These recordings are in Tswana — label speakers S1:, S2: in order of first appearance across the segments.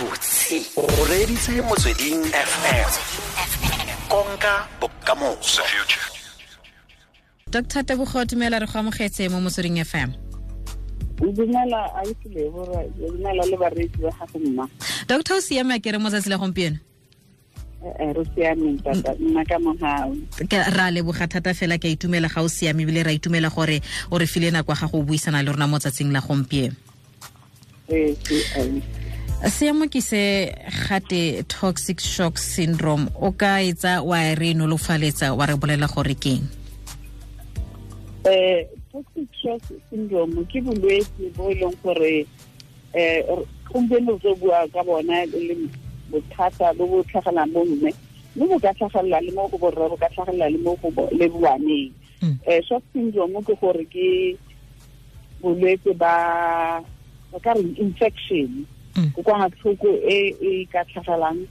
S1: Gabotse o reeditse Motsweding FM, konka bokamoso.
S2: Dr. Tebogo, dumela, re go amogetse mo Motsweding FM.
S3: Dumela, ausi, dumela le bareetsi ba gago, mma.
S2: Doctor, o siame a kere mo tsatsi la gompieno?
S3: Re siameng tata, nna ka mogau.
S2: Ra leboga thata fela, ke a itumela ga o siame, ebile ra itumela gore o re file nako ya gago o buisana le rona mo tsatsing la gompieno.
S3: Ee.
S2: Seemo ke se gate toxic shock syndrome, o ka etsa wa re nolofaletsa, wa re bolela gore keng?
S3: Toxic shock syndrome ke bolwetse bo e leng gore gompieno re tlo bua ka bona e le bothata bo bo tlhagelang bo mme, mme bo ka tlhagelela le mo go borre, bo ka tlhagelela le mo go le baneng. Shock syndrome ke gore ke bolwetse ba ba ka reng infection, kokwanatlhoko e e ka tlhagelang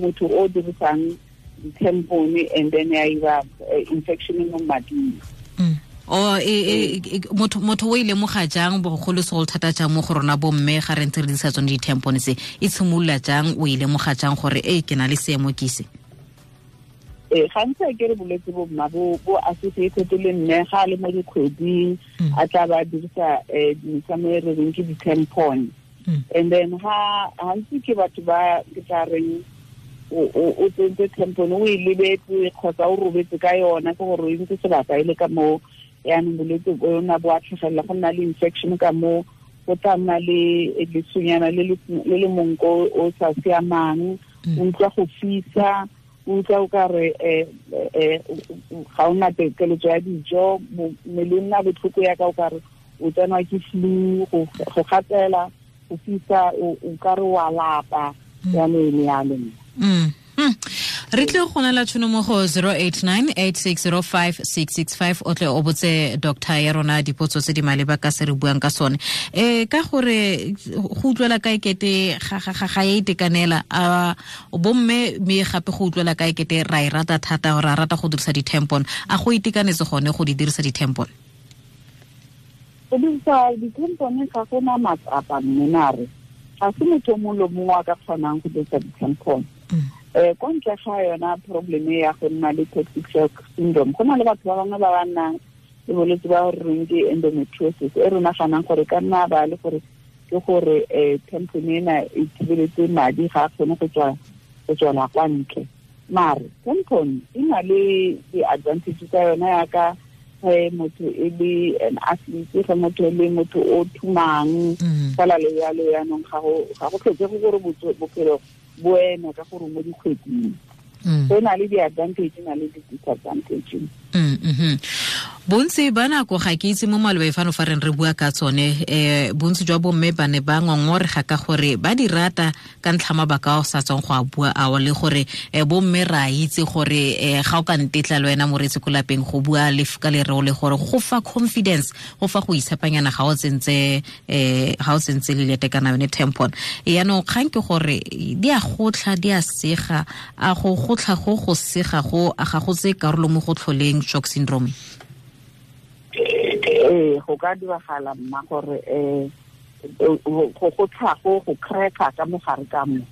S3: motho o dirisang di-tampon, and then ya ira infection mo mading.
S2: O motho o ile lemoga jang, bogolo segolo thata jang mo go rona bomme ga re ntse re dirisa tsone di-tampon tse? E tshimolola jang, o e lemoga jang gore e ke na le seemo ke se?
S3: Ee, gantsi a ke re bolwetse bo, mma, bo associated le mme ga a le mo dikgweding, a tla ba dirisa dimesamo e re reng ke di-tampon, and then ha gantsi ke batho ba ke tla reng o tsentse tampon, o e lebetse kgotsa o robetse ka yona, ke gore o ntse sebaka e le ka moo. Yaanong bolwetse bona bo a tlhagelela, go nna le infection ka moo, go tla nna le lesonyana le le monko o sa siamang, o utlwa go fisa, o utlwa o ka re ga o na keletso ya dijo, mmele o nna botlhoko yaka o ka re o tsenwa ke flu, go gatsela, go fisa, o ka re wa lapa, yalo le yalo.
S2: Re tle go nela tšhono mo go 089 8605 665, o tle o botse doctor ya rona dipotso tse di maleba ka se re buang ka sone. Ka gore go utlwela ka ekete ga ya itekanela a bomme, mme gape go utlwela ka ekete ra e rata thata, ra rata go dirisa di-tampon. A go itekanetse gone go di dirisa di-tampon?
S3: Go dirisa di-tampon ga gona matsapa, mme mare ga se motho o mongwe le mongwe a ka kgonang go dirisa di-tampon. Ko ntle ga yona problem ya go nna le toxic shock syndrome, go na le batho ba bangwe ba ba nnang le bolwetse ba re reng ke endometriosis, e re naganang gore ka nna ba le gore ke gore tampon ena e thibeletse madi, ga a kgone go tswa go tswela kwa ntle. Mare tampon e na le di-advantage tsa yona, yaka ge motho e le an athlete, ge motho e le motho o thumang fela le yalo. Yaanong ga go tlhokege gore bophelo bo eme ka gore mo dikgweding. So e na le di-advantage, na le di-disadvantage.
S2: Bontsi ba nako, ga ke itse mo malobe fano fa reng re bua ka tsone, bontsi jwa bomme ba ne ba ngongorega ka gore ba di rata ka ntlha mabaka a o sa tswang go a bua ao, le gore bomme ra itse gore ga o ka ntetla le wena moreetsi ko lapeng go bua le ka lereo le gore go fa confidence, go fa go itshepanyana ga o tsentse lelete kana yone tampon. Yaanong kgang ke gore di a gotlha, di a sega. A go gotlha go sega go a ga go tse karolo mo go tlholeng shock syndrome?
S3: Ee, go ka diragala, mma, gore go go tlhago go cracka ka mogare ka mo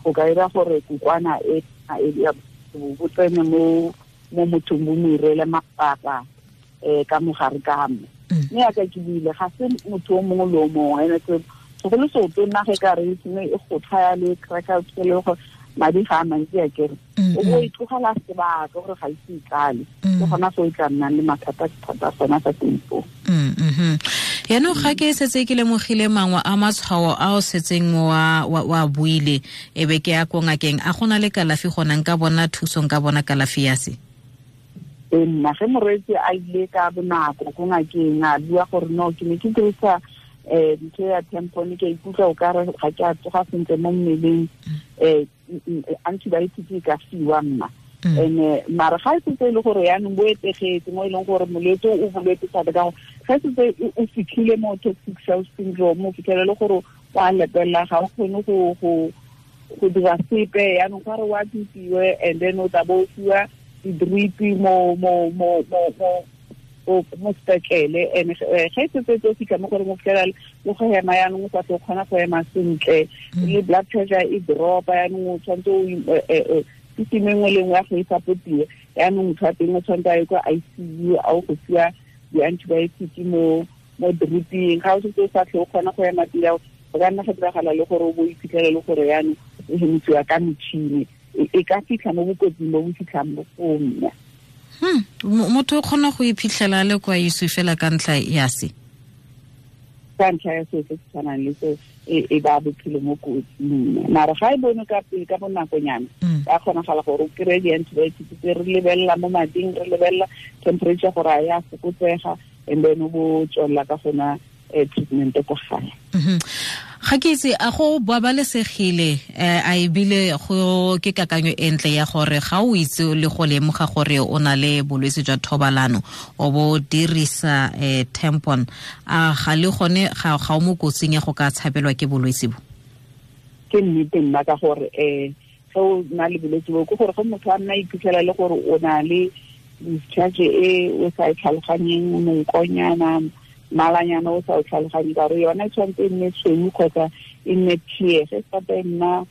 S3: go ka dira gore kokwana e bo tsene mo mothong, bo mo irele mapapa ka mogare ka mo. Mme yaka ke buile, ga se motho o mongwe le o mongwe, ene segolo seotonna ge ka re e e go tlhaya le cracka le gore madi ga a mantsi a kere o bo e tlogela sebaka gore ga ise e tlale, ke gona fo e tla nnang le mathata thata gona fa teng foo.
S2: Yaanong ga ke setse ke lemogile mangwe a matshwao a o setseng wa buile, e be ke ya ko ngakeng, a gona le kalafi gona, nka bona thuso, nka bona kalafi ya se?
S3: Ee, nna, ge moreetsi a ile ka bonako ko ngakeng, a bua gore no, ke ne ke dirisa ntho ya tampon, ke ikutlwa o kare ga ke a tsoga sentle mo mmeleng, antibiotic e ka fiwa, mma. And mara ga e setse e le gore yaanong bo etegetse mo e leng gore molwetse o bolwetse thata, ka gore ga setse o fitlhile mo toxic shock syndrome, o fitlhele le gore o a lepelela, ga o kgone go dira sepe. Yaanong ga re o admitiwe, and then o tla bo o fiwa di-drip mo mo mo mo mo mo sepetlele. And ge setse o fitlha mo gore mo fitlhela le go hema yaanong o sa tle o kgona go ema sentle, le blood pressure e dropa, yaanong o tshwanetse o system e nngwe le nngwe ya go e supportiwe. Yaanong motho wa teng o tshwanetse a ye kwa ICU, a o go fiwa di-antibiotic mo driping. Ga o setse o sa tle o kgona go ema pila, o ka nna ga diragala le gore o bo iphitlhele le gore yaanong o hemisiwa ka metšhini. E ka fitlha mo bokotsing bo bo fitlhang bo foo mme.
S2: Motho o kgona go iphitlhela le kwa ICU fela ka ntlha ya se?
S3: Ka ntlha ya seo se se tshwanang le seo, e ba bophelo mo kotsing. Mara ga e bone ka pele ka bonakonyana, ka kgonagala gore o kry-e di-antibiotics tse re lebelela mo mading, re lebelela temperature gore a ya fokotsega, and then o bo tswelela ka gona treatment ko gae.
S2: Ga ke itse a go babalesegile, a ebile go ke kakanyo e ntle ya gore ga o itse le go lemoga gore o na le bolwetse jwa thobalano o bo dirisa tampon, a ga le gone ga o mo kotsing ya go ka tshabelwa ke bolwetse bo?
S3: Ke nnete nna, ka gore ge o na le bolwetse bo, ke gore ge motho a nna iphitlhela le gore o na le discharge e o sa e tlhaloganyeng, monkonyana, malanyana o sa o tlhaloganye, ka gore yona e tshwanetse e nne tshweu kgotsa e nne tear. Ge sata e nna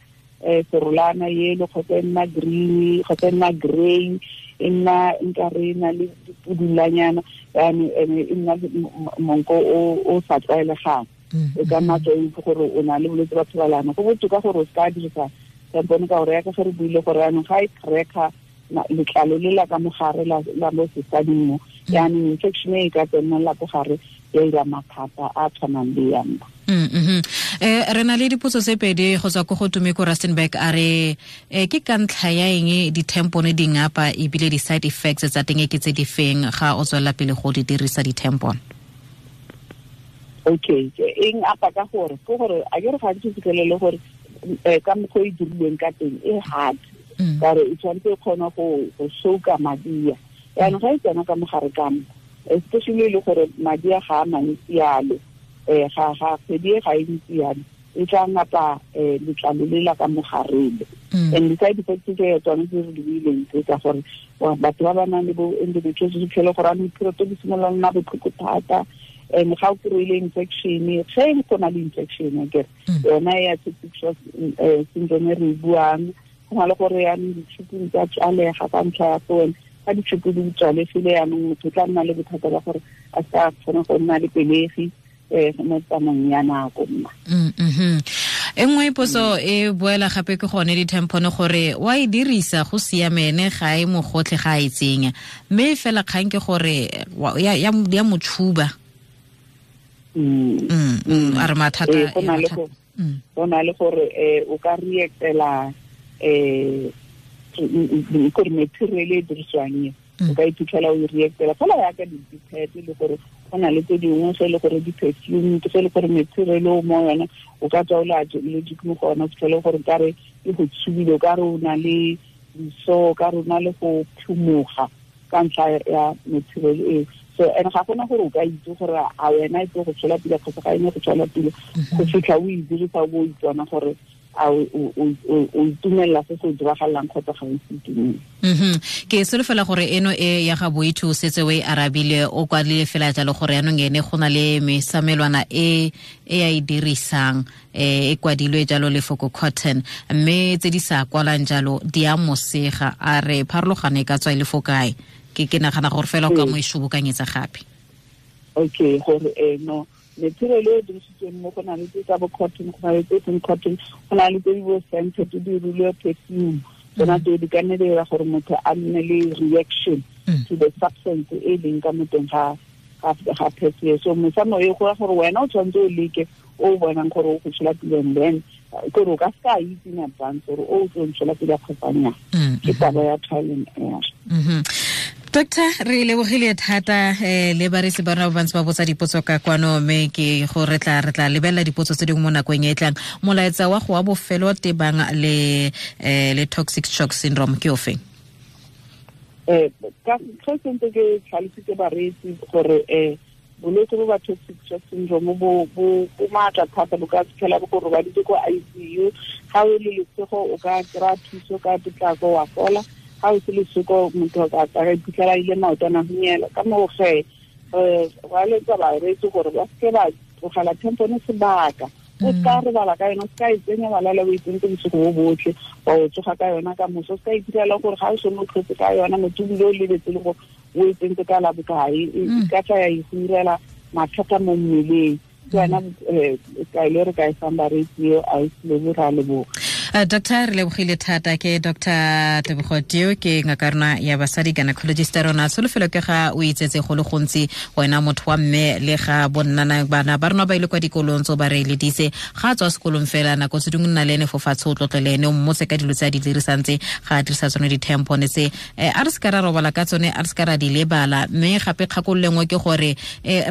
S3: serolana yelo kgotsa e nna green kgotsa e nna grey, e nna nkare e na le dipudulanyana, yaanong e nna monko o sa tlwaelegang, e ka nna tswa itse gore o na le bolwetse ba thobalano. Go botoka gore o seka dirisa tampone, ka gore yaka ge re buile gore yaanong ga e cracker letlalo le la ka mogare la mo sesading mo, yaanong infection e ka tsenela ko gare ya ira mathata a tshwanang le ya mma.
S2: Re na le dipotso tse pedi go tswa ko go Tumeko Rustenburg. A re ke ka ntlha ya eng di-tampone di ngapa ebile di-side effects tsa teng ke tse di feng ga o tswelela pele go di dirisa di-tampon?
S3: Okay, eng apa ka gore ke gore a ke re gantsi fitlhelele gore ka mokgwa e dirilweng ka teng e hard, ka gore e tshwanetse e kgone go soka madia. Yaanong ga e tsena ka mogare ka mo, especially le gore madi a ga a mantsi yalo, ga kgwedi e ga e ntsi yalo, e tla ngapa letlalo le la ka mogarele. And di-side effects tse tsone tse re di buileng tse tsa gore batho ba ba nang le bo endometriosis, fitlhele gore anong period di simolola nna botlhoko thata, and ga o kry-ile infection, ge go na le infection akere yona ya septic shock syndrome e re e buang, go na le gore yaanong ditšhupung tsa tswalega ka ntlha ya tsone. Ga ditšhupu di tswalegile yaanong motho o tla nna le bothata ba gore a sa kgone go nna le pelegi mo tsamaong ya nako mma.
S2: E nngwe potso e boela gape ke gone di-tampone gore wa e dirisa go siamene ga e mogotlhe ga e tsenya, mme fela kgang ke gore ya motshuba. A re mathata
S3: go na le gore o ka reactela gore material e dirisiwang e o ka iphitlhela o e reactela fela yaka di-pad, le gore go na le tse dingwe ge e le gore di-perfume, ge e le gore material o mo yona o ka tswa o le allergic mo go yona, o fitlhele gore kare e go tshubile, o ka re o na le diso, o ka re o na le go phumoga ka ntlha ya material eo. So and ga gona gore o ka itse gore a wena e tlo go tswela pele kgotsa ga e ne go tswela pele, go fitlha o e dirisa o bo o itsona gore a o itumelela se se diragalang kgotsa ga o se itumele.
S2: Ke solofela gore eno e ya ga Boithu o setse o e arabile, o kwadile fela jalo gore yaanong ene go na le mesamelwana e e a e dirisang, e kwadilwe jalo lefoko cotton, mme tse di sa kwalang jalo di a mosega. A re pharologano e ka tswa e le fo kae? Ke nagana gore fela o ka mo e shobokanyetsa gape.
S3: Okay, gore no material e dirisitsweng mo go na le tse tsa bo cotton, go na le tse seng cotton, go na le tse di bo scented, di dirilwe perfume, tsona tseo di ka nne di dira gore motho a nne le reaction to the substance e leng ka mo teng ga perfume. So mosamo e go ya gore wena o tshwanetse o leke o bonang gore o go tshola pele, and then gore o ka seka itse in advance gore o tlo ntshola pele kgotsa nnyaa. Ke taba ya trial and error.
S2: Doctor, re lebogile thata le bareetsi ba rona ba bantsi ba botsa dipotso ka kwano, mme ke go re tla lebelela dipotso tse dingwe mo nakong e e tlang. Molaetsa wa go wa bofelo tebang le toxic shock syndrome ke ofe?
S3: Ka ge sentse ke tlhalositse bareetsi gore bolwetse bo ba toxic shock syndrome bo maatla thata, bo ka fitlhela bo go robaditse ko ICU. Ga o le lesego o ka kry-a thuso ka potlako wa fola, ga o se lesoko motho a ka iphitlhela ile maotwana hunyela. Ka moo ge Re eletsa bareetsi gore ba seke ba tlogela tampone sebaka. O ska robala ka yona, o ska e tsenya wa lala o e tsentse bosigo bo botlhe, wa o tsoga ka yona ka moso, o ska itirela gore ga o sone o tlhotse ka yona motho ebile o lebetse le gore o e tsentse ka la bokae, e ka tla ya e go irela mathata mo mmeleng. Ke yona kaelo re ka e fang bareetsi eo, a e lebo, ra leboga.
S2: Doctor, re lebogile thata. Ke Dr Tebogo Teo, ke ngaka rona ya basadi, gynecologist rona. Tsholofelo ke ga o itsetse go le gontsi wena motho wa mme, le ga bonnana bana ba rona ba ile kwa dikolong tso ba re eleditse ga a tswa sekolong fela, nako tse dingwe nna le ene fo fatshe, o tlotle le ene, o mmotse ka dilo tse a di dirisang tse, ga a dirisa tsone di-tampone tse. A re se ka ra robala ka tsone, a re se ka ra di lebala. Mme gape kgakololo nngwe ke gore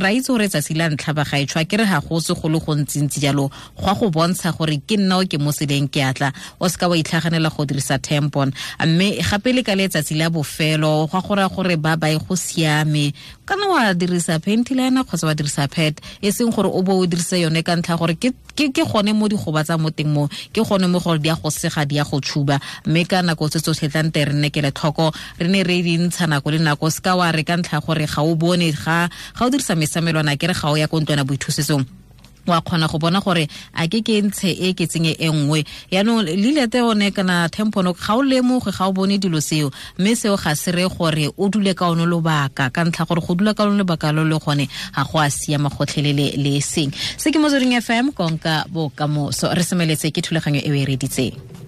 S2: ra itse gore tsatsi la ntlha ba gaetsho, ke re ga go se go le gontsintsi jalo, go a go bontsha gore ke nna o ke mo seleng ke atla, o seka wa itlhaganela go dirisa tampon. Mme gape le ka letsatsi la bofelo, go a go raya gore ba bae go siame, kana wa dirisa panty liner kgotsa wa dirisa pad, e seng gore o bo o dirise yone ka ntlha gore ke gone mo di gobatsa mo teng mo, ke gone mo gore di a go sega, di a go tshuba. Mme ka nako tse tsotlhe tla nte re nne kelotlhoko, re ne re di ntsha nako le nako. Se ka wa re ka ntlha gore ga o bone, ga o dirisa mesamelwana, ke re ga o ya ko ntlwana boithusetsong, wa kgona go bona gore a ke ntshe e ke tsenye e nngwe. Yaanong lilete one kana tampon ga o lemoge, ga o bone dilo seo, mme seo ga se re gore o dule ka one lobaka, ka ntlha gore go dula ka one lobaka lo le gone ga go a siama gotlhelele le seng. Se ke Motsweding FM, konka bokamoso. Re semeletse ke thulaganyo e o e reditseng.